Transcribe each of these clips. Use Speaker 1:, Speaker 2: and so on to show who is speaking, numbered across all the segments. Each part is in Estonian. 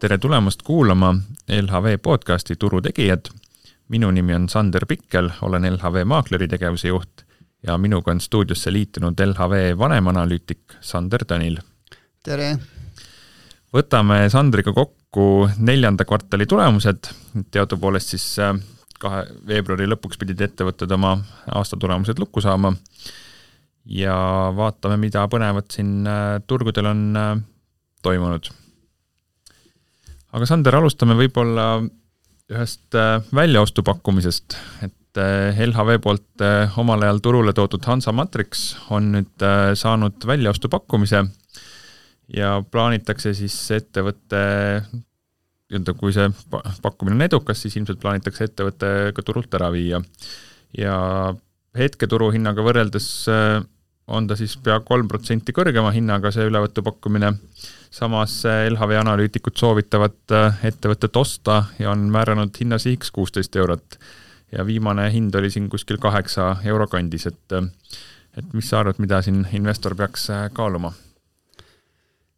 Speaker 1: Tere tulemast kuulama LHV podcasti Turutegijad. Minu nimi on Sander Pikkel, olen LHV maakleri tegevuse juht ja minuga on stuudiosse liitunud LHV vanemanalüütik Sander Tõnil.
Speaker 2: Tere!
Speaker 1: Võtame Sandriga kokku 4. kvartali tulemused. Teadupoolest siis 2. veebruari lõpuks pidid ettevõtted oma aastatulemused lukku saama ja vaatame, mida põnevat siin turgudel on toimunud. Aga Sander, alustame võib-olla ühest väljaostupakkumisest, et LHV poolt omal ajal turule toodud Hansa Matrix on nüüd saanud väljaostupakkumise ja plaanitakse siis ettevõtte, kui see pakkumine on edukas, siis ilmselt plaanitakse ettevõtte ka turult ära viia. Ja hetke turuhinnaga võrreldes on ta siis pea 3% kõrgema hinnaga see ülevõtupakkumine. Samas LHV analüütikud soovitavad ettevõtet osta ja on määranud hinnasihiks 16 eurot. Ja viimane hind oli siin kuskil 8 euro kandis. Et mis sa arvad, mida siin investor peaks kaaluma?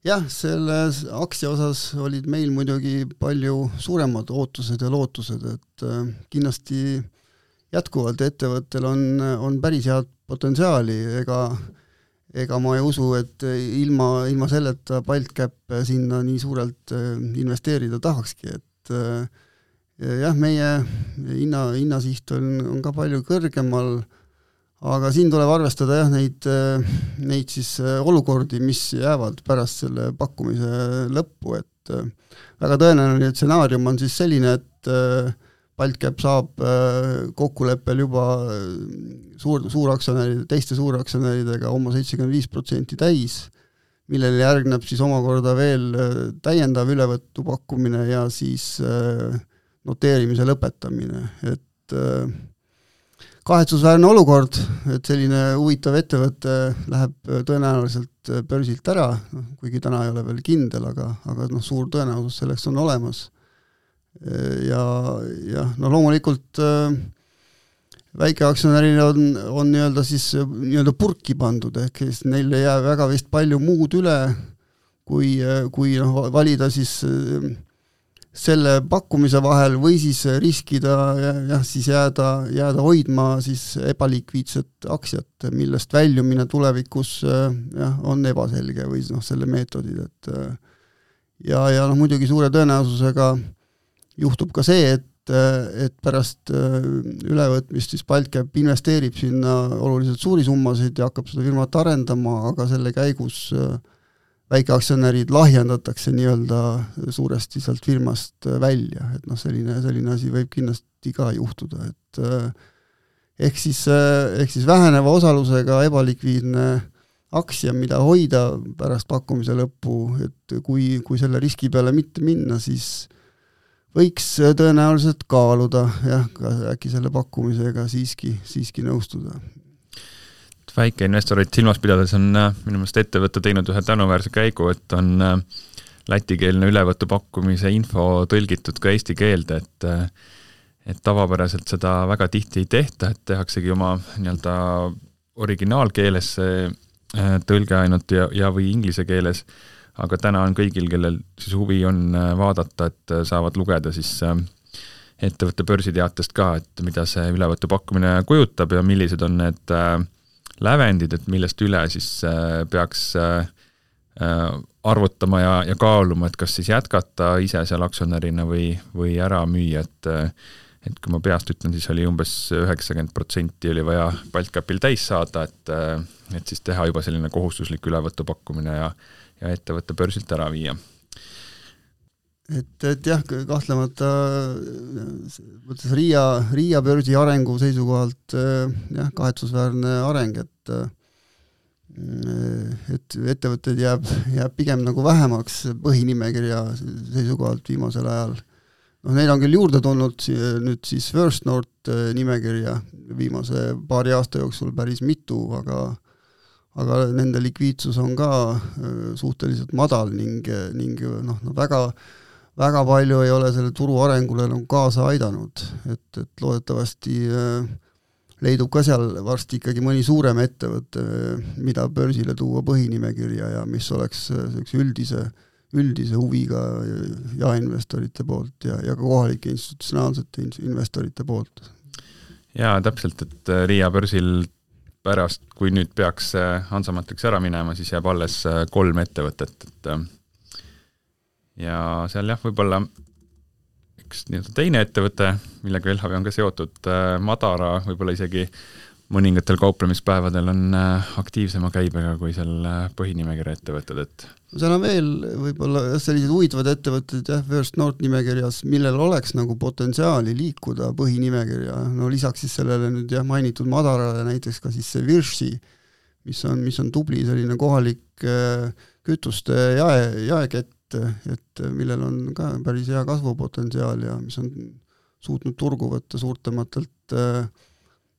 Speaker 2: Jah, selle aktsia osas olid meil muidugi palju suuremad ootused ja lootused, et kindlasti jätkuvalt ettevõttel on päris head potentsiaali, ega ma ei usu, et ilma selleta Baltcap sinna nii suurelt investeerida tahakski, et jah, meie hinnasiht on ka palju kõrgemal, aga siin tuleb arvestada jah, neid siis olukordi, mis jäävad pärast selle pakkumise lõppu, et väga tõenäoline stsenaarium on siis selline, et Baltcap saab kokkuleppel juba teiste suuraktsionäridega oma 75% täis, millele järgneb siis omakorda veel täiendav ülevõttu pakkumine ja siis noteerimise lõpetamine. Et kahetsusväärne olukord, et selline huvitav ettevõte läheb tõenäoliselt börsilt ära, kuigi täna ei ole veel kindel, aga suur tõenäosus selleks on olemas. Ja loomulikult väikeaktsionärina on nii-öelda purki pandud, ehk neil ei jää väga vist palju muud üle, kui valida siis selle pakkumise vahel või siis riskida ja siis jääda hoidma siis ebalikviidset aktsiat, millest väljumine tulevikus on ebaselge või selle meetodid. Ja muidugi suure tõenäosusega juhtub ka see, et pärast ülevõtmist siis Baltcap investeerib sinna oluliselt suuri summasid ja hakkab seda firmat arendama, aga selle käigus väikeaktsionärid lahjendatakse nii-öelda suuresti sealt firmast välja, et selline asi võib kindlasti ka juhtuda, et ehk siis väheneva osalusega ebalikviidne aktsia, mida hoida pärast pakkumise lõppu, et kui selle riski peale mitte minna, siis võiks tõenäoliselt kaaluda, ka äkki selle pakkumisega siiski nõustuda.
Speaker 1: Väikeinvestorid silmas pidades on minu meelest ettevõtte teinud ühe tänuväärse käigu, et on lätikeelne ülevõtu pakkumise info tõlgitud ka eesti keelde, et tavapäraselt seda väga tihti ei tehta, et tehaksegi oma nii-öelda originaalkeeles tõlge ainult ja või inglise keeles, aga täna on kõigil, kellel siis huvi on vaadata, et saavad lugeda siis ettevõtte börsiteatest ka, et mida see ülevõtu pakkumine kujutab ja millised on need lävendid, et millest üle siis peaks arvutama ja kaaluma, et kas siis jätkata ise seal aktsionärina või ära müüa, et kui ma peast ütlen, siis oli umbes 90% oli vaja Baltcapil täis saada, et siis teha juba selline kohustuslik ülevõtu pakkumine ja ettevõtte börsilt ära viia.
Speaker 2: Et jah, kahtlemata võttes Riia börsi arengu seisukohalt kahetsusväärne areng, et ettevõtted jääb pigem nagu vähemaks põhinimekirja seisukohalt viimasel ajal. Neil on küll juurde tulnud nüüd siis First North nimekirja viimase paari aasta jooksul päris mitu, aga nende likviidsus on ka suhteliselt madal ning väga palju ei ole selle turu arengule kaasa aidanud, et loodetavasti leidub ka seal varsti ikkagi mõni suurem ettevõte, mida börsile tuua põhinimekirja ja mis oleks üldise üldise huviga jaeinvestorite poolt ja ka kohalike institutsionaalsete investorite poolt.
Speaker 1: Jaa, täpselt, et Riia börsil pärast, kui nüüd peaks Hansamatrix ära minema, siis jääb alles 3 ettevõtet, et ja seal jah, võib-olla üks teine ettevõte, millega LHV on ka seotud, Madara, võib-olla isegi mõningatel kauplemispäevadel on aktiivsema käibega kui seal põhinimekirja ettevõtted, et
Speaker 2: seal on veel võib-olla sellised huvitavad ettevõtted First North nimekirjas, millel oleks nagu potentsiaali liikuda põhinimekirja, no lisaks siis sellele nüüd mainitud Madarale näiteks ka siis see Virši, mis on tubli selline kohalik kütuste jaekett, et millel on ka päris hea kasvupotentsiaal ja mis on suutnud turgu võtta suurtematelt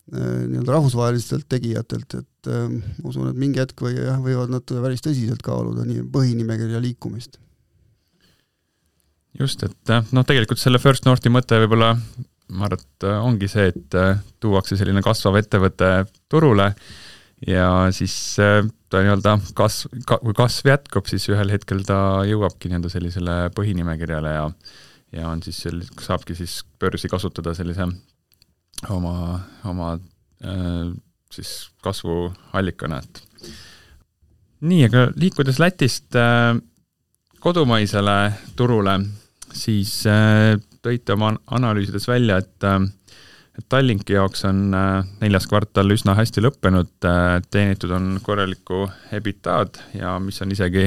Speaker 2: rahvusvahelistelt tegijatelt, et usun, et mingi hetk võivad nad päris tõsiselt kaaluda nii põhinimekirja liikumist.
Speaker 1: Just, et tegelikult selle First Northi mõte võib-olla, ma arvan, et ongi see, et tuuakse selline kasvav ettevõte turule ja siis ta kui kasv jätkub, siis ühel hetkel ta jõuabki sellisele põhinimekirjale ja on siis saabki siis börsi kasutada sellise oma siis kasvuallikana. Nii, aga liikudes Lätist kodumaisele turule, siis tõite oma analüüsides välja, et Tallinki jaoks on 4. kvartal üsna hästi lõppenud, teenitud on korralikku EBITDA-d ja mis on isegi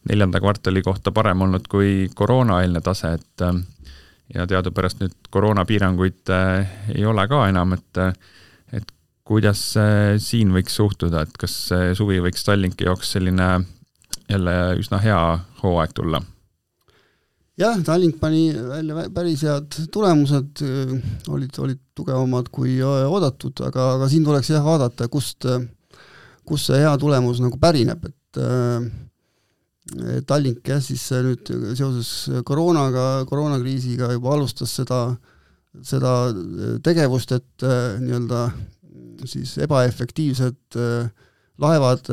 Speaker 1: 4. kvartali kohta parem olnud kui koroonaeelne tase, et ja teadupärast nüüd koroonapiiranguid ei ole ka enam, et kuidas siin võiks suhtuda, et kas suvi võiks Tallinki jaoks selline jälle üsna hea hooaeg tulla?
Speaker 2: Jah, Tallink pani välja päris head tulemused, olid tugevamad kui oodatud, aga siin tuleks vaadata, kust see hea tulemus nagu pärineb, et Tallink siis nüüd seoses koroonakriisiga juba alustas seda tegevust, et nii-öelda siis ebaefektiivsed laevad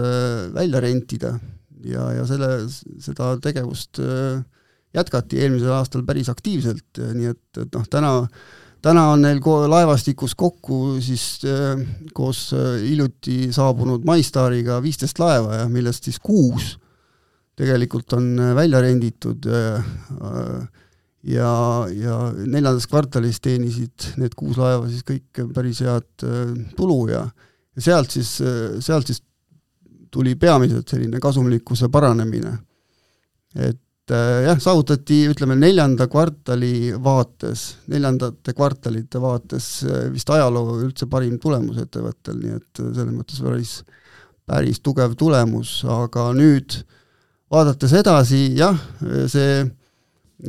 Speaker 2: välja rentida ja seda tegevust jätkati eelmisel aastal päris aktiivselt, nii et täna on neil laevastikus kokku siis koos hiljuti saabunud MyStariga 15 laeva, millest siis 6 tegelikult on välja renditud ja 4. kvartalis teenisid need 6 laeva siis kõik päris head tulu ja sealt siis tuli peamiselt selline kasumlikkuse paranemine. Et saavutati, ütleme, 4. kvartalite vaates vist ajaloo üldse parim tulemus ettevõttel, nii et selles mõttes päris tugev tulemus, aga nüüd vaadates edasi, see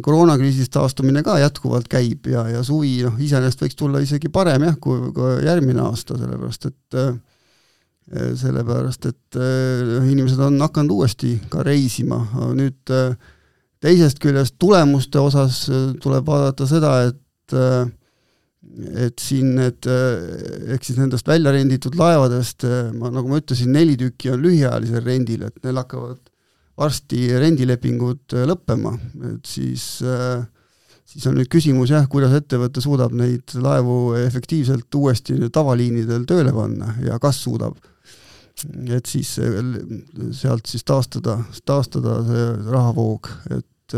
Speaker 2: koroonakriisist taastumine ka jätkuvalt käib ja suvi iseenesest võiks tulla isegi parem kui järgmine aasta, sellepärast et inimesed on hakanud uuesti ka reisima. Nüüd teisest küljest tulemuste osas tuleb vaadata seda, et siin ehk siis nendest välja renditud laevadest, nagu ma ütlesin, 4 tükki on lühiajalisel rendil, et neil hakkavad varsti rendilepingud lõppema, et siis on nüüd küsimus, kuidas ettevõte suudab neid laevu efektiivselt uuesti tavaliinidel tööle panna ja kas suudab. Et siis sealt siis taastada see rahavoog, et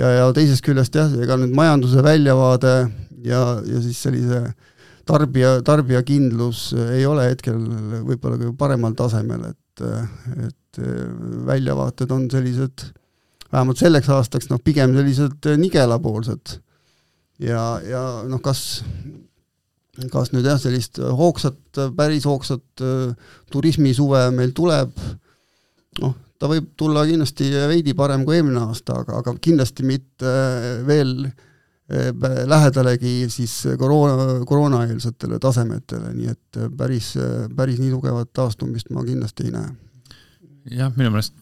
Speaker 2: ja teisest küljest ega nüüd majanduse väljavaade ja siis sellise tarbijakindlus ei ole hetkel võib-olla ka paremal tasemel, et väljavaated on sellised, vähemalt selleks aastaks, pigem sellised nigelapoolsed ja kas nüüd sellist päris hoogsat turismisuve meil tuleb, ta võib tulla kindlasti veidi parem kui eelmine aasta, aga kindlasti mitte veel lähedalegi siis koroonaeelsetele tasemetele, nii et päris nii tugevat taastumist ma kindlasti ei näe.
Speaker 1: Jah, minu meelest,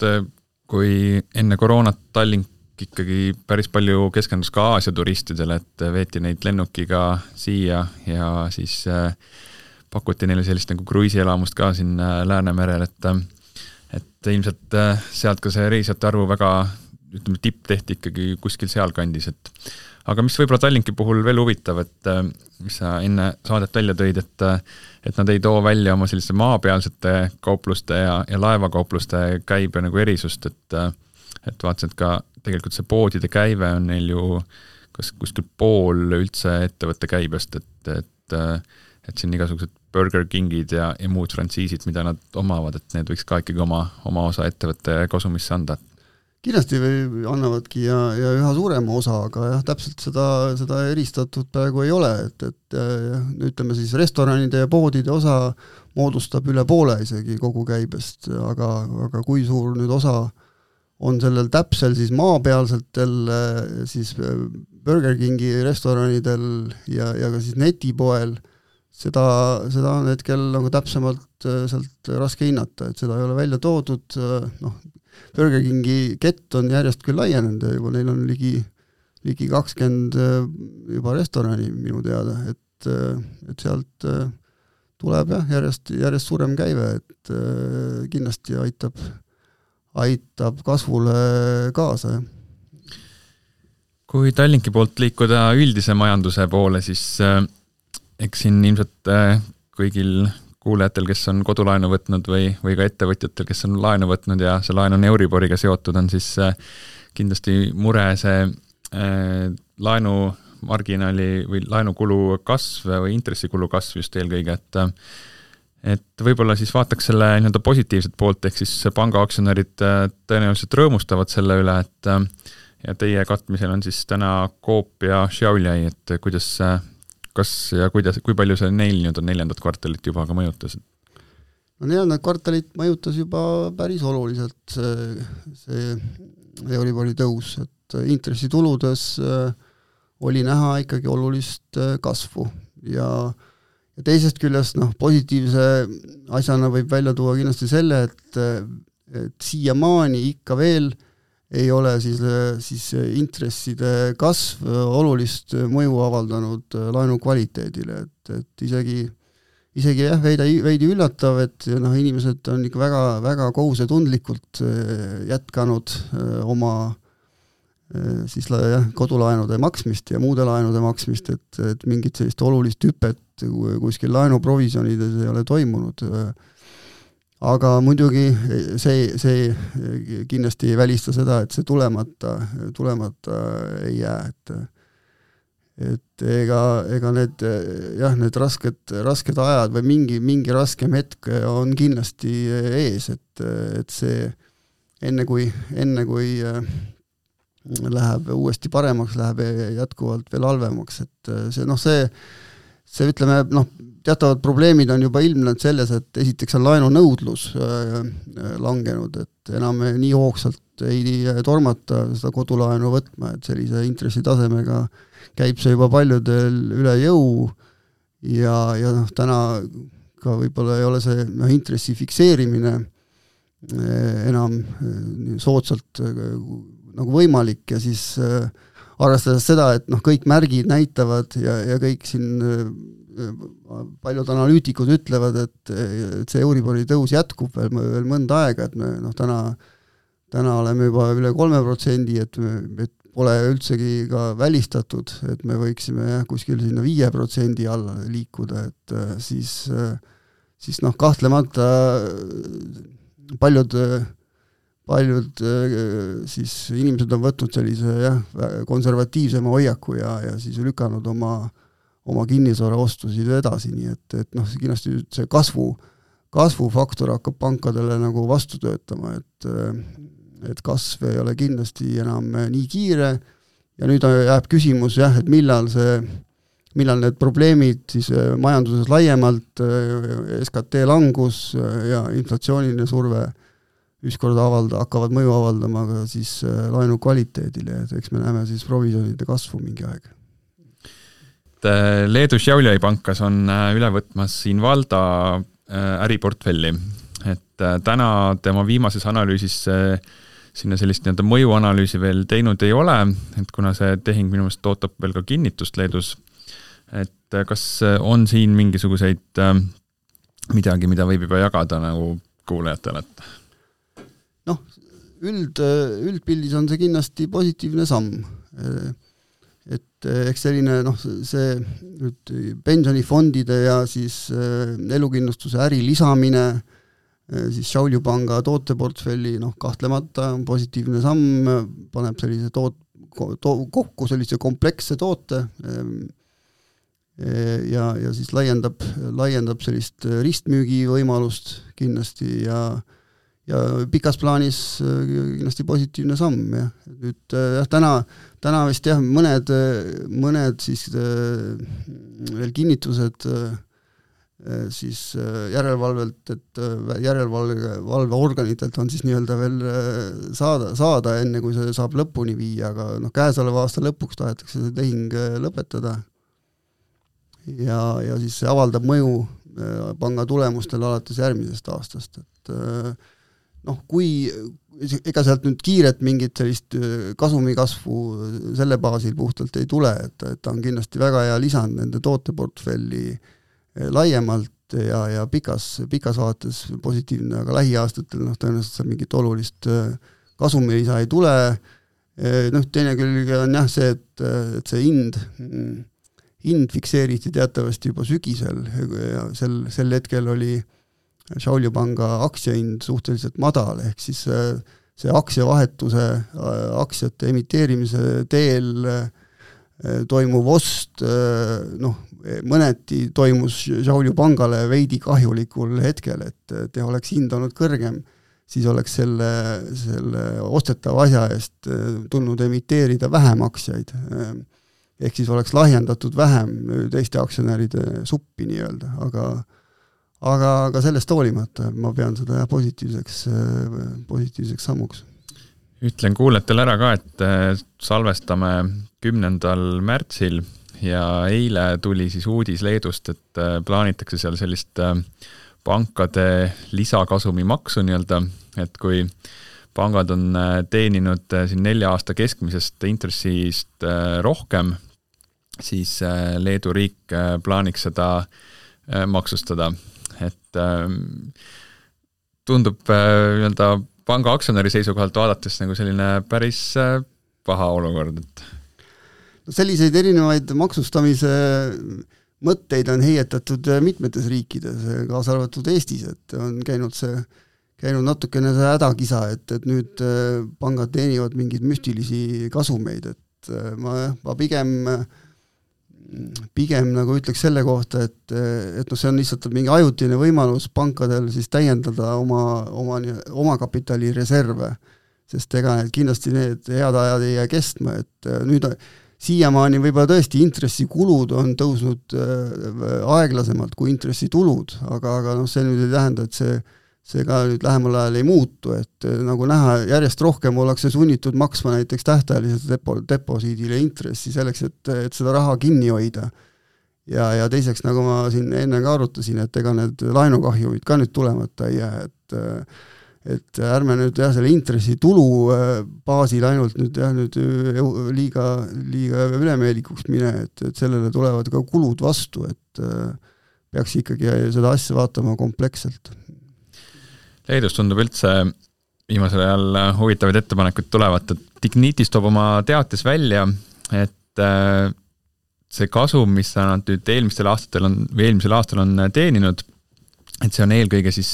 Speaker 1: kui enne koroonat Tallink ikkagi päris palju keskendus ka Aasia turistidele, et veeti neid lennukiga siia ja siis pakuti neile sellist nagu kruiisielamust ka siin Läänemerel, et ilmselt sealt ka see reisijate arvu väga ütleme, tipp tehti ikkagi kuskil sealkandis, et aga mis võib-olla Tallinki puhul veel huvitav, et mis sa enne saadet välja tõid, et nad ei too välja oma selliste maapealsete kaupluste ja laevakaupluste käibe nagu erisust, et vaatasin, et ka tegelikult see poodide käive on neil ju kas kuskil pool üldse ettevõtte käibest, et siin igasugused Burger Kingid ja muud frantsiisid, mida nad omavad, et need võiks ka ikkagi oma osa ettevõtte kasumisse anda.
Speaker 2: Kindlasti annavadki ja üha suurema osa, aga jah, täpselt seda eristatud praegu ei ole, et ütleme siis restoranide ja poodide osa moodustab üle poole isegi kogu käibest, aga kui suur nüüd osa on sellel täpsel siis maapealsetel siis Burger Kingi restoranidel ja ka siis netipoel, seda on hetkel nagu täpsemalt sealt raske hinnata, et seda ei ole välja toodud, Burger Kingi kett on järjest küll laienenud ja juba neil on ligi 20 juba restorani minu teada, et sealt tuleb järjest suurem käive, et kindlasti aitab kasvule kaasa.
Speaker 1: Kui Tallinki poolt liikuda üldise majanduse poole, siis eks siin ilmselt kõigil kuulajatel, kes on kodulaenu võtnud või ka ettevõtjatel, kes on laenu võtnud ja see laen on Euriboriga seotud, on siis kindlasti mure see laenumarginaali või laenukulu kasv või intressikulu kasv just eelkõige, et võib-olla siis vaataks selle nii-öelda positiivset poolt, ehk siis pangaaktsionärid tõenäoliselt rõõmustavad selle üle, et ja teie katmisel on siis täna Coop ja Xiaoliai, et kui palju see neil nüüd on 4. kvartalit juba ka mõjutas?
Speaker 2: No 4. kvartalit mõjutas juba päris oluliselt see Euribori tõus, et intressituludes oli näha ikkagi olulist kasvu ja teisest küljest positiivse asjana võib välja tuua kindlasti selle, et siiamaani ikka veel ei ole siis intresside kasv olulist mõju avaldanud laenu kvaliteedile, et isegi jah, veidi üllatav, et inimesed on ikka väga, väga kohusetundlikult jätkanud oma siis kodulaenude maksmist ja muude laenude maksmist, et mingit sellist olulist hüpet kuskil laenuprovisjonides ei ole toimunud. Aga muidugi see kindlasti ei välista seda, et see tulemata ei jää, et ega need rasked ajad või mingi raskem hetk on kindlasti ees, et see enne kui läheb uuesti paremaks, läheb jätkuvalt veel halvemaks, et see ütleme, teatavad probleemid on juba ilmnenud selles, et esiteks on laenunõudlus langenud, et enam nii hoogsalt ei tormata seda kodulaenu võtma, et sellise intressitasemega käib see juba paljudel üle jõu ja täna ka võib-olla ei ole see intressi fikseerimine enam soodsalt nagu võimalik ja siis arvestades seda, et kõik märgid näitavad ja kõik siin paljud analüütikud ütlevad, et see Euribori tõus jätkub veel mõnda aega, et me täna oleme juba üle 3%, et pole üldsegi ka välistatud, et me võiksime kuskil sinna 5% alla liikuda, et siis kahtlemata paljud siis inimesed on võtnud sellise konservatiivsema hoiaku ja siis lükanud oma kinnisvara ostusid edasi, nii et kindlasti see kasvufaktor hakkab pankadele nagu vastu töötama, et kasv ei ole kindlasti enam nii kiire ja nüüd jääb küsimus et millal need probleemid siis majanduses laiemalt, SKT langus ja inflatsiooniline surve ükskord hakkavad mõju avaldama ka siis laenu kvaliteedile, et eks me näeme siis provisjonide kasvu mingi aeg.
Speaker 1: Leedu Xiaoliai pankas on üle võtmas Invalda äriportfelli, et täna tema viimases analüüsis sinna sellist nii-öelda mõjuanalüüsi veel teinud ei ole, et kuna see tehing minu meelest ootab veel ka kinnitust Leedus, et kas on siin mingisuguseid midagi, mida võib juba jagada nagu kuulajatele, et
Speaker 2: üldpildis on see kindlasti positiivne samm. Et eks selline see nüüd pensionifondide ja siis elukindlustuse äri lisamine siis Šiaulių panga tooteportfelli kahtlemata on positiivne samm, paneb sellise kokku sellise kompleksse toote ja siis laiendab sellist ristmüügi võimalust kindlasti ja pikas plaanis kindlasti positiivne samm. Ja. Nüüd täna vist mõned siis veel kinnitused siis järelevalvelt, et järelevalveorganitelt on siis nii-öelda veel saada enne, kui see saab lõpuni viia, aga käesoleva aasta lõpuks tahetakse see tehing lõpetada ja siis see avaldab mõju panga tulemustele alates järgmisest aastast, et kui ega sealt nüüd kiiret mingit sellist kasumikasvu selle baasil puhtalt ei tule, et ta on kindlasti väga hea lisand nende tooteportfelli laiemalt ja pikas vaates positiivne, aga lähiaastatel tõenäoliselt mingit olulist kasumilisa ei tule. Teine külg on jah see, et see hind fikseeriti teatavasti juba sügisel ja sel hetkel oli Šiaulių panga aktsiahind suhteliselt madal, ehk siis see aktsiavahetuse, aktsiate emiteerimise teel toimuv ost, mõneti toimus Šiaulių pangale veidi kahjulikul hetkel, et oleks hind olnud kõrgem, siis oleks selle ostetava asja eest tulnud emiteerida vähem aktsiaid. Ehk siis oleks lahjendatud vähem teiste aktsionäride suppi nii-öelda, aga sellest hoolimata ma pean seda positiivseks sammuks.
Speaker 1: Ütlen kuulajatele ära ka, et salvestame 10. märtsil ja eile tuli siis uudis Leedust, et plaanitakse seal sellist pankade lisakasumi maksu nii-öelda, et kui pangad on teeninud siin 4 aasta keskmisest intressist rohkem, siis Leedu riik plaaniks seda maksustada. Et tundub panga aktsionäri seisukohalt vaadates nagu selline päris paha olukord.
Speaker 2: Selliseid erinevaid maksustamise mõtteid on heietatud mitmetes riikides, kaasa arvatud Eestis, et on käinud natukene see hädakisa, et nüüd pangad teenivad mingeid müstilisi kasumeid, et ma pigem nagu ütleks selle kohta, et see on lihtsalt mingi ajutine võimalus pankadel siis täiendada oma kapitali reserve, sest ega kindlasti need head ajad ei jää kestma, et nüüd siiamaani võib-olla tõesti intressikulud on tõusnud aeglasemalt kui intressitulud, aga see nüüd ei tähenda, et see ka nüüd lähemal ajal ei muutu, et nagu näha, järjest rohkem ollakse sunnitud maksma näiteks tähtajaliselt deposiidile intressi selleks, et seda raha kinni hoida. Ja teiseks, nagu ma siin enne ka arutasin, et ega need laenukahjumid ka nüüd tulemata ei jää, et ärme nüüd selle intressitulu baasil ainult nüüd liiga ülemeelikuks mine, et sellele tulevad ka kulud vastu, et peaks ikkagi seda asja vaatama kompleksselt.
Speaker 1: Leedus tundub üldse viimasel ajal huvitavaid ettepanekuid tulevat, et Ignitis toob oma teates välja, et see kasum, mis nad nüüd eelmisel aastal on teeninud, et see on eelkõige siis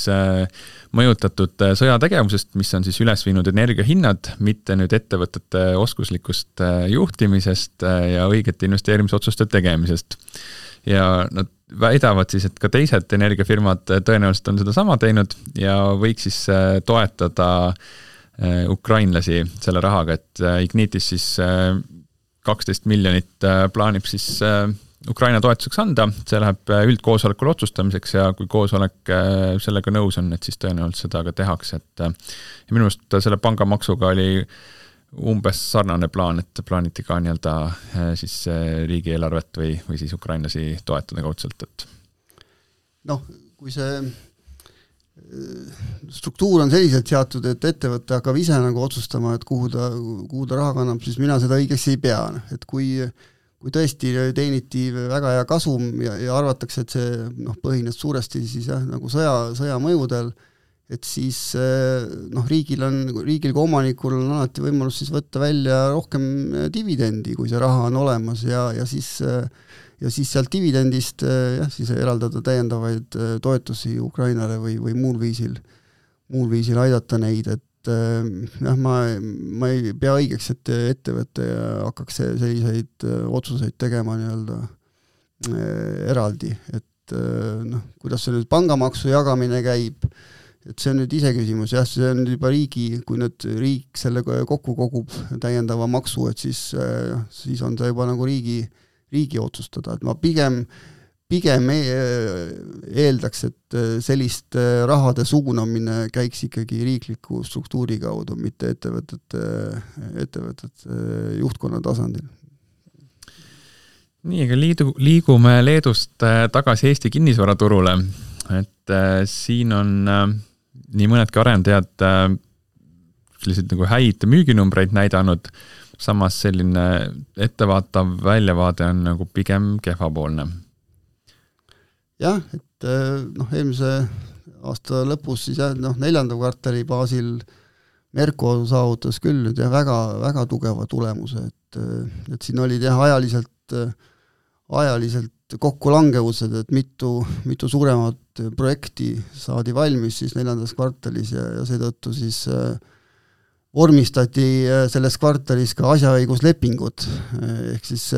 Speaker 1: mõjutatud sõjategevusest, mis on siis üles viinud energiahinnad, mitte nüüd ettevõtete oskuslikust juhtimisest ja õigete investeerimisotsuste tegemisest. Ja nad väidavad siis, et ka teised energiafirmad tõenäoliselt on seda sama teinud ja võiks siis toetada ukrainlasi selle rahaga, et Ignitis siis 12 miljonit plaanib siis Ukraina toetuseks anda, see läheb üldkoosolekul otsustamiseks ja kui koosolek sellega nõus on, et siis tõenäoliselt seda ka tehakse, et ja minu meelest selle pangamaksuga oli umbes sarnane plaan, et plaaniti ka nii-öelda siis riigieelarvet või siis ukrainlasi toetada kaudselt, et
Speaker 2: kui see struktuur on selliselt seatud, et ettevõte hakkab ise nagu otsustama, et kuhu ta raha kannab, siis mina seda õigeks ei pea, et kui tõesti teeniti väga hea kasum ja arvatakse, et see põhines suuresti siis nagu sõja mõjudel et siis riigil kui omanikul on alati võimalus siis võtta välja rohkem dividendi, kui see raha on olemas ja siis sealt dividendist siis eraldada täiendavaid toetusi Ukrainale või muul viisil aidata neid, et ma ei pea õigeks, et ettevõte hakkaks selliseid otsuseid tegema nii-öelda eraldi, et kuidas see nüüd pangamaksu jagamine käib, et see on nüüd iseküsimus, see on nüüd juba kui nüüd riik selle kokku kogub täiendava maksu, et siis on see juba nagu riigi otsustada, et ma pigem eeldaks, et sellist rahade suunamine käiks ikkagi riikliku struktuuri kaudu, mitte ettevõtete juhtkonna tasandil.
Speaker 1: Nii, aga liigume Leedust tagasi Eesti kinnisvaraturule, et siin on nii mõnedki arendajad selliseid nagu häid müüginumbreid näidanud, samas selline ettevaatav väljavaade on nagu pigem kehvapoolne.
Speaker 2: Jah, et eelmise aasta lõpus siis 4. kvartali baasil Merko saavutas küll nüüd väga, väga tugeva tulemuse, et siin olid ajaliselt kokkulangevused, et mitu suuremat projekti saadi valmis siis 4. kvartalis ja seetõttu siis vormistati selles kvartalis ka asjaõiguslepingud, ehk siis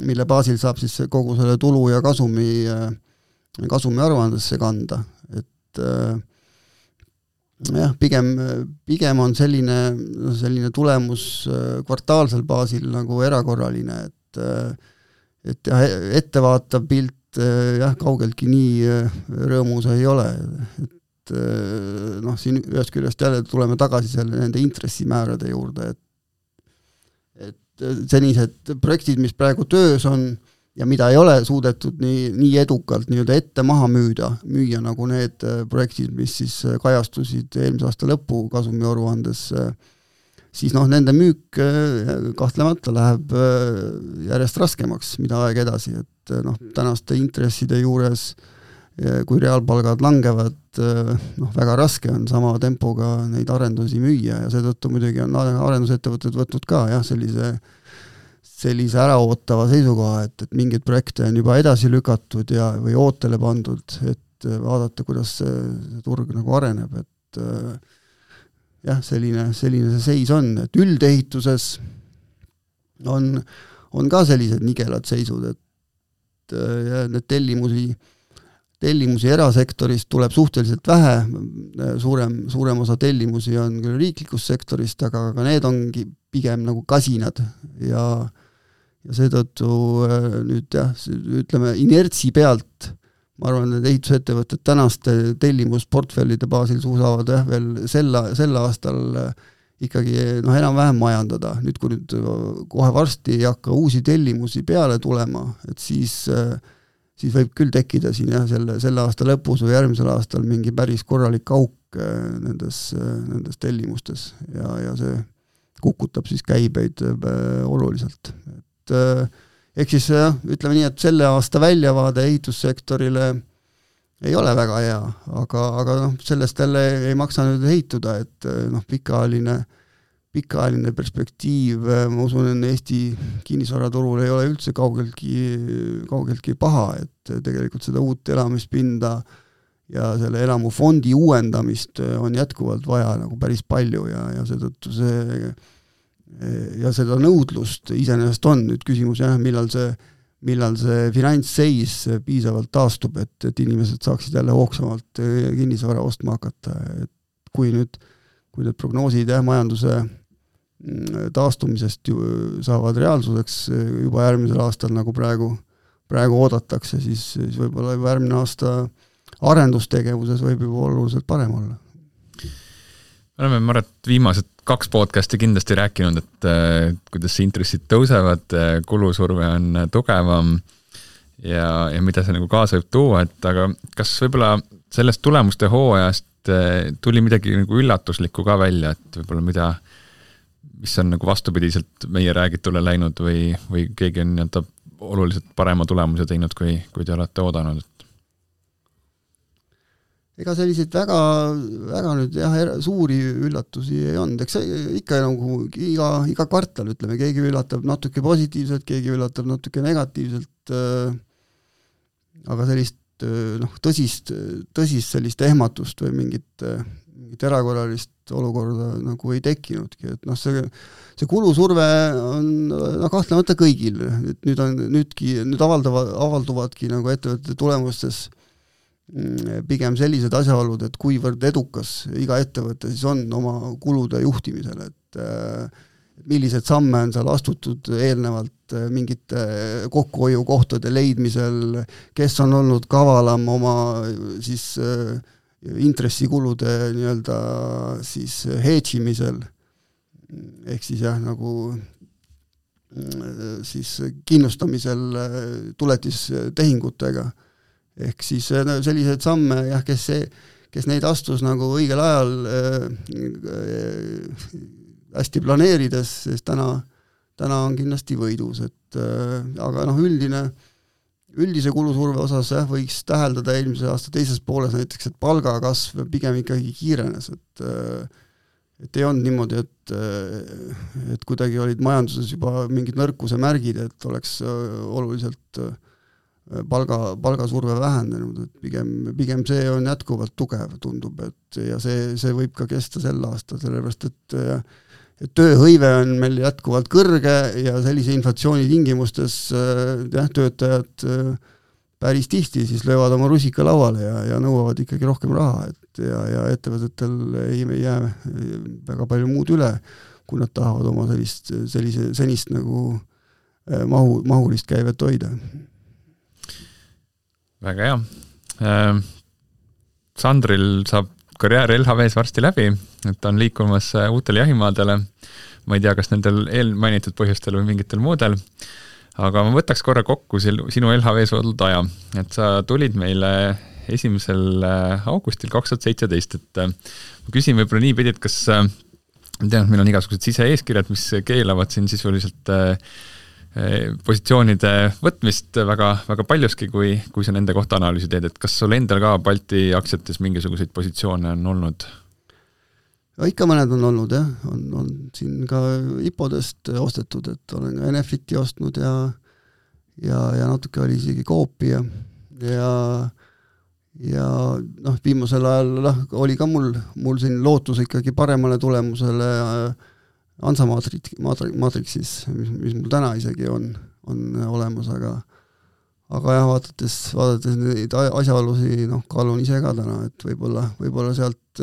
Speaker 2: mille baasil saab siis kogu selle tulu ja kasumi aruandesse kanda, et pigem on selline tulemus kvartaalsel baasil nagu erakorraline, et ettevaatav pilt kaugeltki nii rõõmus ei ole, et siin ühest küljest jälle tuleme tagasi nende intressimäärade juurde, et senised projektid, mis praegu töös on ja mida ei ole suudetud nii edukalt nii-öelda ette maha müüa nagu need projektid, mis siis kajastusid eelmise aasta lõpu kasumiaruandes, siis nende müük kahtlemata läheb järjest raskemaks, mida aeg edasi, et tänaste intresside juures, kui reaalpalgad langevad, väga raske on sama tempoga neid arendusi müüa ja seetõttu muidugi on arendusettevõtted võtnud ka sellise äraootava seisukoha, et mingeid projekte on juba edasi lükatud või ootele pandud, et vaadata, kuidas see turg nagu areneb, et selline see seis on, et üldehituses on ka sellised nigelad seisud, et need tellimusi erasektorist tuleb suhteliselt vähe, suurem osa tellimusi on küll riiklikust sektorist, aga need ongi pigem nagu kasinad ja seetõttu nüüd ütleme inertsi pealt, ma arvan, et ehitusettevõtted tänaste tellimusportfellide baasil suusavad veel sel aastal ikkagi enam-vähem majandada. Nüüd, kui kohe varsti ei hakka uusi tellimusi peale tulema, et siis võib küll tekkida siin selle aasta lõpus või järgmisel aastal mingi päris korralik auk nendes tellimustes ja see kukutab siis käibeid oluliselt. Ehk siis ütleme nii, et selle aasta väljavaade ehitussektorile ei ole väga hea, aga sellest jälle ei maksa nüüd heituda, et pikaajaline perspektiiv, ma usun, et Eesti kinnisvaraturul ei ole üldse kaugeltki paha, et tegelikult seda uut elamispinda ja selle elamufondi uuendamist on jätkuvalt vaja nagu päris palju ja seetõttu seda nõudlust iseenesest on nüüd küsimus, millal see finantsseis piisavalt taastub, et inimesed saaksid jälle hoogsamalt kinnisvara ostma hakata, et kui need prognoosid majanduse taastumisest saavad reaalsuseks juba järgmisel aastal, nagu praegu oodatakse, siis võib-olla juba järgmine aasta arendustegevuses võib juba oluliselt parem olla.
Speaker 1: Me oleme, ma arvan, et viimased 2 podcasti kindlasti rääkinud, et kuidas intressid tõusevad, kulusurve on tugevam ja mida see nagu kaasa võib tuua, et aga kas võib-olla sellest tulemuste hooajast tuli midagi nagu üllatuslikku ka välja, et võib-olla mis on nagu vastupidiselt meie räägitule läinud või keegi on oluliselt parema tulemuse teinud, kui te olete oodanud?
Speaker 2: ega selliseid väga nüüd suuri üllatusi ei olnud, eks ikka nagu iga kvartal, ütleme, keegi üllatab natuke positiivselt, keegi üllatab natuke negatiivselt, aga sellist tõsist sellist ehmatust või mingit erakorralist olukorda nagu ei tekkinudki, et see kulusurve on kahtlemata kõigil, et nüüd avalduvadki nagu ettevõtete tulemustes pigem sellised asjaolud, et kuivõrd edukas iga ettevõte siis on oma kulude juhtimisel, et millised samme on seal astutud eelnevalt mingite kokkuhoiukohtade leidmisel, kes on olnud kavalam oma siis intressikulude nii-öelda siis hedžimisel, ehk siis nagu siis kindlustamisel tuletistehingutega. Ehk siis sellised samme, kes neid astus nagu õigel ajal hästi planeerides, sest täna on kindlasti võidus, et aga üldise kulusurve osas võiks täheldada eelmise aasta teises pooles näiteks, et palgakasv pigem ikkagi kiirenes, et ei olnud niimoodi, et kuidagi olid majanduses juba mingid nõrkuse märgid, et oleks oluliselt palgasurve vähenenud, et pigem see on jätkuvalt tugev, tundub, et ja see võib ka kesta sel aastal, sellepärast et tööhõive on meil jätkuvalt kõrge ja sellise inflatsiooni tingimustes töötajad päris tihti siis löövad oma rusika lauale ja nõuavad ikkagi rohkem raha, et ja ettevõtetel ei jää väga palju muud üle, kui nad tahavad oma senist nagu mahulist käivet hoida.
Speaker 1: Väga hea. Sandril saab karjäär LHVs varsti läbi, et ta on liikumas uutele jahimaadele. Ma ei tea, kas nendel eelmainitud põhjustel või mingitel muudel, aga ma võtaks korra kokku sinu LHVs olnud aja, et sa tulid meile 1. augustil 2017, et ma küsin võib-olla nii pidi, et kas tean, et meil on igasugused siseeeskirjad, mis keelavad siin sisuliselt positsioonide võtmist väga, väga paljuski, kui sa nende kohta analüüsi teed, et kas sul endal ka Balti aktsiates mingisuguseid positsioone on olnud?
Speaker 2: Ja ikka mõned on olnud, on siin ka IPO-dest ostetud, et olen ka Enefiti ostnud ja natuke oli isegi Coopi ja viimasel ajal oli ka mul siin lootus ikkagi paremale tulemusele Ansa Matrixis, mis mul täna isegi on olemas, aga jah, vaadates neid asjaolusi, kaalun ise ka täna, et võib-olla sealt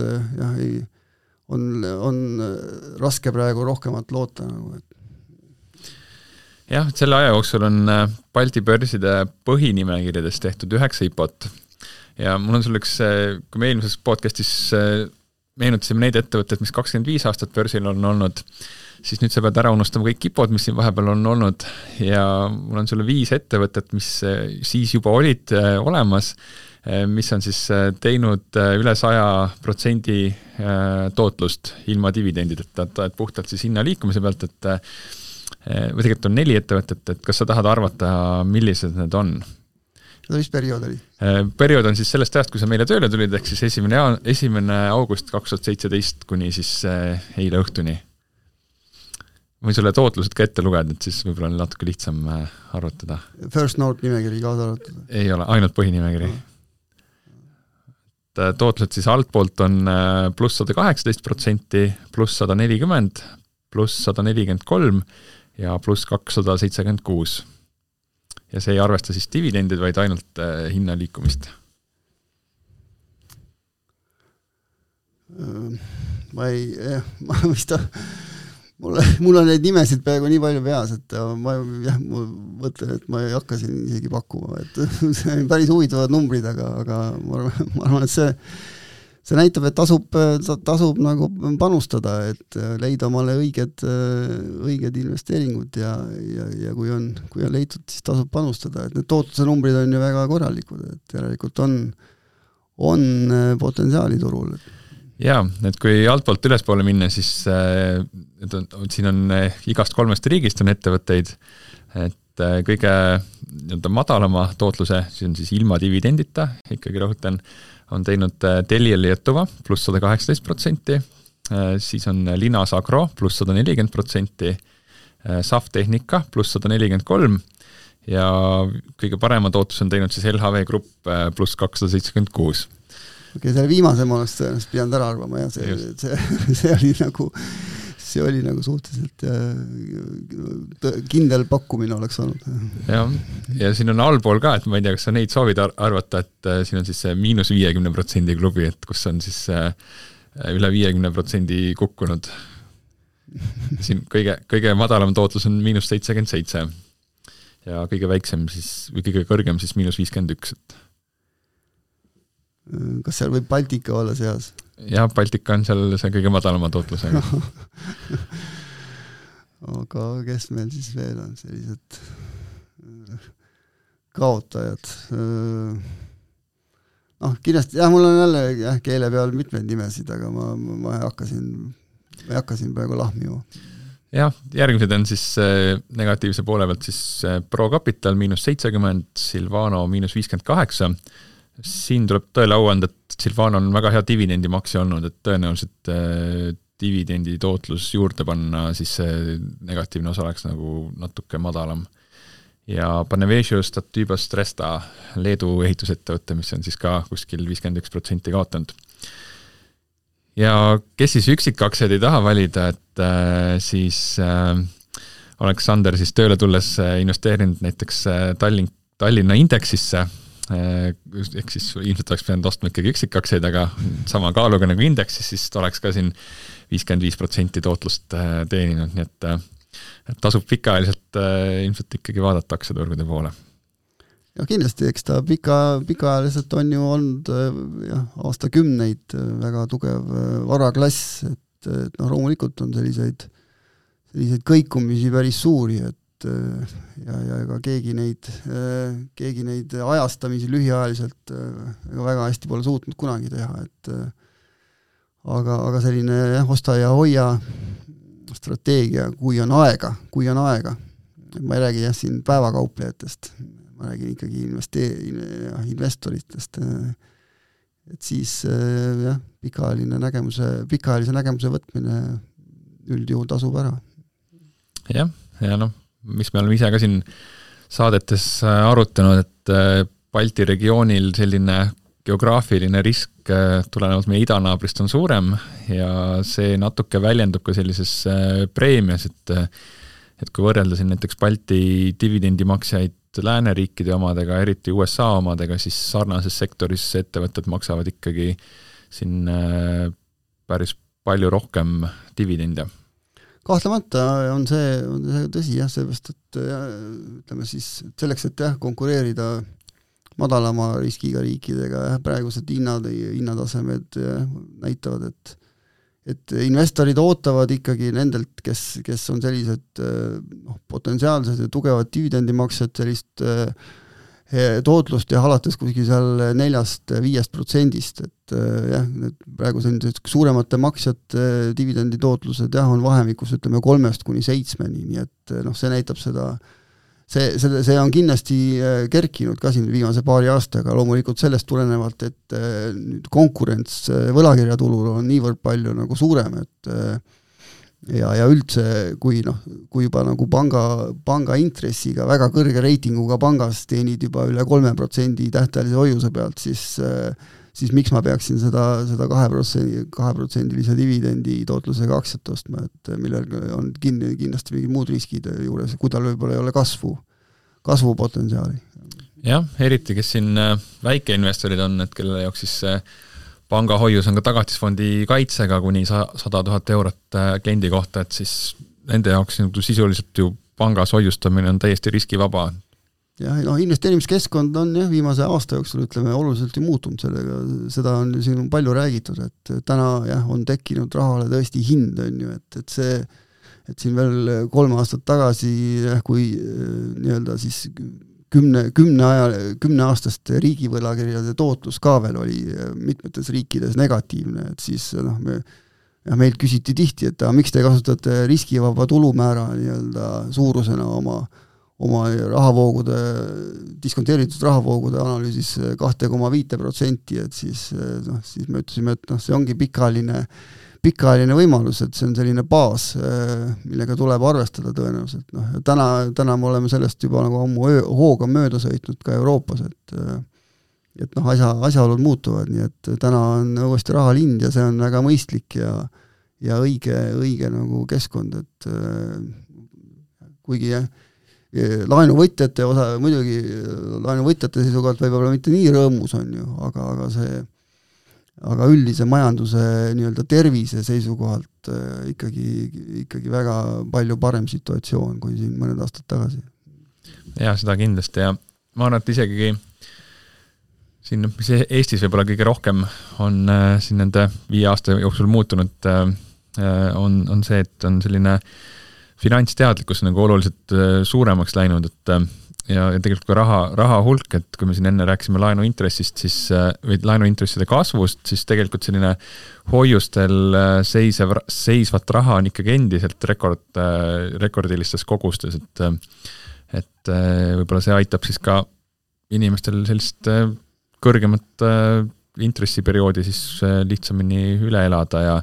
Speaker 2: on raske praegu rohkemat loota.
Speaker 1: Jah, selle aja jooksul on Balti börside põhinimekirjades tehtud 9 IPO-t ja mul on sul üks, kui me eelmises podcastis meenutasime neid ettevõtteid, mis 25 aastat börsil on olnud, siis nüüd sa pead ära unustama kõik IPO-d, mis siin vahepeal on olnud ja mul on sulle 5 ettevõtet, mis siis juba olid olemas, mis on siis teinud üle 100% tootlust ilma dividendideta, et puhtalt siis hinna liikumise pealt, et või tegelikult on 4 ettevõtet, et kas sa tahad arvata, millised need on?
Speaker 2: Mis periood oli?
Speaker 1: Periood on siis sellest ajast, kui sa meile tööle tulid, ehk siis 1. august 2017 kuni siis eile õhtuni. Võin sulle tootlused ka ette lugeda, et siis võib-olla on natuke lihtsam arvutada.
Speaker 2: First Note nimekiri kaasa arvutada?
Speaker 1: Ei ole, ainult põhinimekiri. Tootlused siis altpoolt on pluss 118%, pluss 140%, pluss 143% ja pluss 276%. Ja see ei arvesta siis dividendid, vaid ainult hinna liikumist.
Speaker 2: Mul on neid nimesid peaaegu nii palju peas, et ma mõtlen, et ma ei hakka siin isegi pakkuma, et see on päris huvitavad numbrid, aga ma arvan, et see näitab, et tasub nagu panustada, et leida omale õiged investeeringud ja kui on leitud, siis tasub panustada, et need tootluse numbrid on ju väga korralikud, et järelikult on potentsiaali turul.
Speaker 1: Jaa, et kui altpoolt ülespoole minna, siis siin on igast 3 riigist on ettevõtteid, et et kõige nii-öelda madalama tootluse, see on siis ilma dividendita, ikkagi rõhutan, on teinud Telia Lietuva pluss 118%, siis on Linas Agro pluss 140%, SAF Tehnika pluss 143% ja kõige parema tootlus on teinud siis LHV Grupp pluss 276%.
Speaker 2: Okei, selle viimase ma oleks tõenäoliselt pidanud ära arvama ja see oli nagu suhteliselt kindel pakkumine oleks olnud.
Speaker 1: Ja siin on allpool ka, et ma ei tea, kas sa neid soovid arvata, et siin on siis see -50% klubi, et kus on siis üle 50% kukkunud. Siin kõige madalam tootlus on -77% ja kõige väiksem siis, või kõige kõrgem siis -51%.
Speaker 2: Kas seal võib Baltika olla seas?
Speaker 1: Jah, Baltika on seal see kõige madalama tootlusega.
Speaker 2: Aga kes meil siis veel on sellised kaotajad? Kindlasti, mul on jälle keele peal mitmeid nimesid, aga ma ei hakka siin praegu lahmima.
Speaker 1: Jah, järgmised on siis negatiivse poole pealt siis ProCapital -70%, Silvano -58%. Siin tuleb tõele au anda, et Silvano on väga hea dividendimaksi olnud, et tõenäoliselt dividendi tootlus juurde panna, siis see negatiivne osa oleks nagu natuke madalam. Ja Panevėžio Statybos Tresta Leedu ehitusettevõtte, mis on siis ka kuskil 51% kaotanud. Ja kes siis üksikaktsiaid ei taha valida, et siis Aleksander siis tööle tulles investeerinud näiteks Tallinna indeksisse, ehk siis ilmselt oleks pidanud ostma ikkagi üksikaktsiaid, aga sama kaaluga nagu indeksis, siis oleks ka siin 55% tootlust teeninud, nii et tasub pikaajaliselt ilmselt ikkagi vaadata aktsiaturgude poole.
Speaker 2: Ja kindlasti, eks ta pikaajaliselt on ju olnud aastakümneid väga tugev varaklass, et loomulikult on selliseid kõikumisi päris suuri, et ja ega keegi neid ajastamisi lühiajaliselt väga hästi pole suutnud kunagi teha, et aga selline osta ja hoia strateegia, kui on aega, ma ei räägi siin päevakauplejatest, ma räägin ikkagi investoritest, et siis pikaajalise nägemuse võtmine üldjuhul tasub ära.
Speaker 1: Ja mis me oleme ise ka siin saadetes arutanud, et Balti regioonil selline geograafiline risk tulenevalt meie idanaabrist on suurem ja see natuke väljendub ka sellises preemias, et kui võrrelda siin näiteks Balti dividendimaksjaid lääneriikide omadega, eriti USA omadega, siis sarnases sektoris ettevõtted maksavad ikkagi siin päris palju rohkem dividende.
Speaker 2: Kahtlemata on see tõsi, seepärast, et ütleme siis selleks, et konkureerida madalama riskiga riikidega, praegused hinnatasemed näitavad, et investorid ootavad ikkagi nendelt, kes on sellised potentsiaalsed ja tugevad dividendimaksed, sellist tootlust ja alates kuskil seal 4-5%, et praegu sellised suuremate maksjate dividendi tootlused on vahemikus, ütleme 3-7, nii et see näitab seda, see on kindlasti kerkinud ka siin viimase paari aastaga, loomulikult sellest tulenevalt, et nüüd konkurents võlakirjatulul on niivõrd palju nagu suurem, et ja üldse, kui juba nagu panga intressiga väga kõrge reitinguga pangas teenid juba üle 3% tähtajalise hoiuse pealt, siis miks ma peaksin seda 2%-lise dividendi tootlusega aktsiat ostma, et millel on kindlasti mingid muud riskid juures, kui tal võib-olla ei ole kasvupotentsiaali.
Speaker 1: Jah, eriti, kes siin väikeinvestorid on, et kelle jaoks siis pangahoius on ka tagatisfondi kaitsega kuni 100 000 eurot kliendi kohta, et siis nende jaoks sisuliselt ju pangas hoiustamine on täiesti riskivaba.
Speaker 2: Ja investeerimiskeskkond on viimase aasta jooksul, ütleme, oluliselt ju muutunud sellega, seda on siin palju räägitud, et täna on tekkinud rahale tõesti hind, on ju, et siin veel 3 aastat tagasi, kui nii-öelda siis 10 aastast riigivõlakirjade tootlus ka veel oli mitmetes riikides negatiivne, et siis meilt küsiti tihti, et miks te kasutate riskivaba tulumäära nii-öelda suurusena oma rahavoogude, diskonteeritud rahavoogude analüüsis 2,5%, et siis me ütlesime, et see ongi pikaajaline võimalus, et see on selline baas, millega tuleb arvestada tõenäoliselt. Täna me oleme sellest juba nagu ammu hooga mööda sõitnud ka Euroopas, et asjaolud muutuvad, nii et täna on uuesti rahalind ja see on väga mõistlik ja õige nagu keskkond, et kuigi laenuvõtjate osa, muidugi laenuvõtjate seisukohalt võib-olla mitte nii rõõmus on ju, aga üldise majanduse nii-öelda tervise seisukohalt ikkagi väga palju parem situatsioon kui siin mõned aastad tagasi.
Speaker 1: Ja seda kindlasti ja ma arvan, et isegi siin, mis Eestis võib-olla kõige rohkem on siin nende 5 aasta jooksul muutunud, on see, et on selline finantsteadlikkus nagu oluliselt suuremaks läinud, ja tegelikult ka raha hulk, et kui me siin enne rääkisime laenuintressist, või laenuintresside kasvust, siis tegelikult selline hoiustel seisvat raha on ikkagi endiselt rekordilistes kogustes, et võib-olla see aitab siis ka inimestel sellist kõrgemat intressiperioodi siis lihtsamini üle elada ja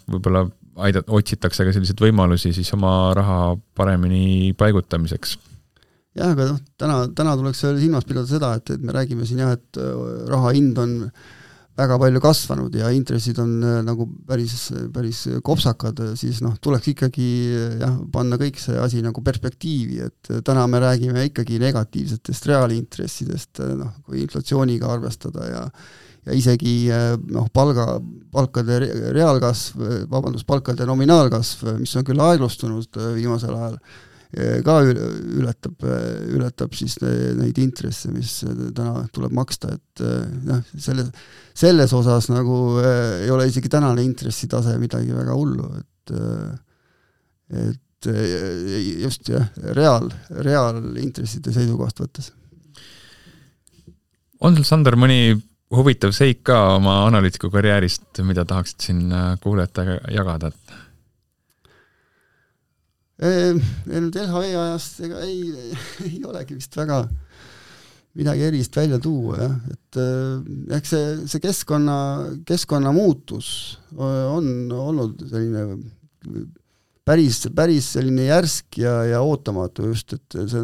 Speaker 1: võib-olla otsitakse ka selliseid võimalusi siis oma raha paremini paigutamiseks.
Speaker 2: Jah, aga täna tuleks silmas pidada seda, et me räägime siin et raha hind on väga palju kasvanud ja intressid on nagu päris kopsakad, siis tuleks ikkagi panna kõik see asi nagu perspektiivi, et täna me räägime ikkagi negatiivsetest reaalintressidest, kui inflatsiooniga arvestada ja isegi palkade reaalkasv, palkade nominaalkasv, mis on küll aeglustunud viimasel ajal, ka ületab siis neid intresse, mis täna tuleb maksta, et selles osas nagu ei ole isegi tänane intressitase midagi väga hullu, et just reaalintresside seisukohast võttes.
Speaker 1: On sul, Sander, mõni huvitav seik ka oma analüütiku karjäärist, mida tahaksid siin kuulajatega jagada?
Speaker 2: Nüüd LHV ajast ei olegi vist väga midagi erist välja tuua, et eks see keskkonna muutus on olnud selline päris selline järsk ja ootamatu just, et see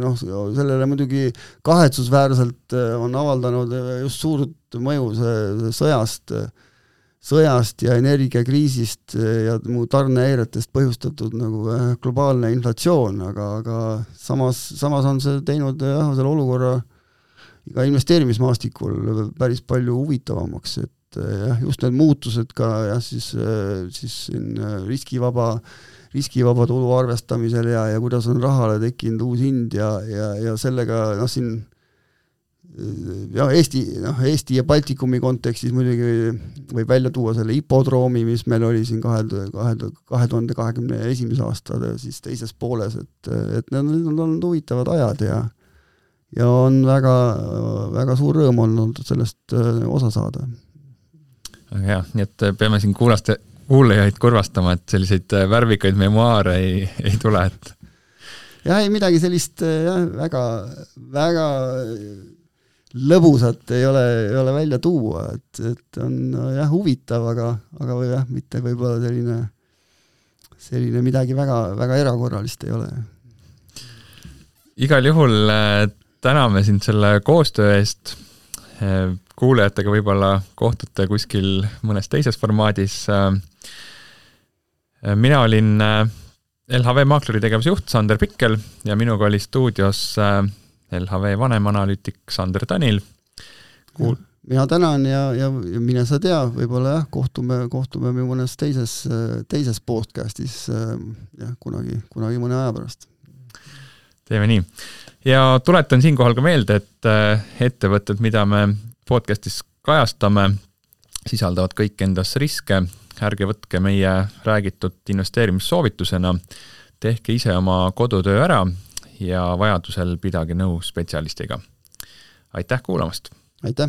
Speaker 2: sellele muidugi kahetsusväärselt on avaldanud just suurt mõju see sõjast ja energiakriisist ja muu tarnehäiretest põhjustatud nagu globaalne inflatsioon, aga samas on see teinud selle olukorra ka investeerimismaastikul päris palju huvitavamaks, et just need muutused ka siis riskivaba tulu arvestamisel ja kuidas on rahale tekkinud uus hind ja sellega siin Eesti ja Baltikumi kontekstis muidugi võib välja tuua selle hipodroomi, mis meil oli siin 2021. aasta siis teises pooles, et need on olnud huvitavad ajad ja on väga, väga suur rõõm olnud sellest osa saada.
Speaker 1: Aga nii et peame siin kuulajaid kurvastama, et selliseid värvikaid memuaare ei tule, et
Speaker 2: ei midagi sellist väga lõbusat ei ole välja tuua, et on huvitav, aga mitte võib-olla selline midagi väga, väga erakorralist ei ole.
Speaker 1: Igal juhul täname sind selle koostöö eest. Kuulajatega võib-olla kohtute kuskil mõnes teises formaadis. Mina olin LHV Maakleri tegevusjuht Sander Pikkel ja minuga oli stuudios LHV vanemanalüütik Sander Tanil.
Speaker 2: Mina tänan ja mine sa tea, võib-olla kohtume mõnes teises podcastis kunagi mõne aja pärast.
Speaker 1: Teeme nii. Ja tuletan siinkohal ka meelde, et ettevõtted, mida me podcastis kajastame, sisaldavad kõik endas riske. Ärge võtke meie räägitud investeerimissoovitusena, tehke ise oma kodutöö ära ja vajadusel pidage nõu spetsialistiga. Aitäh kuulamast!
Speaker 2: Aitäh!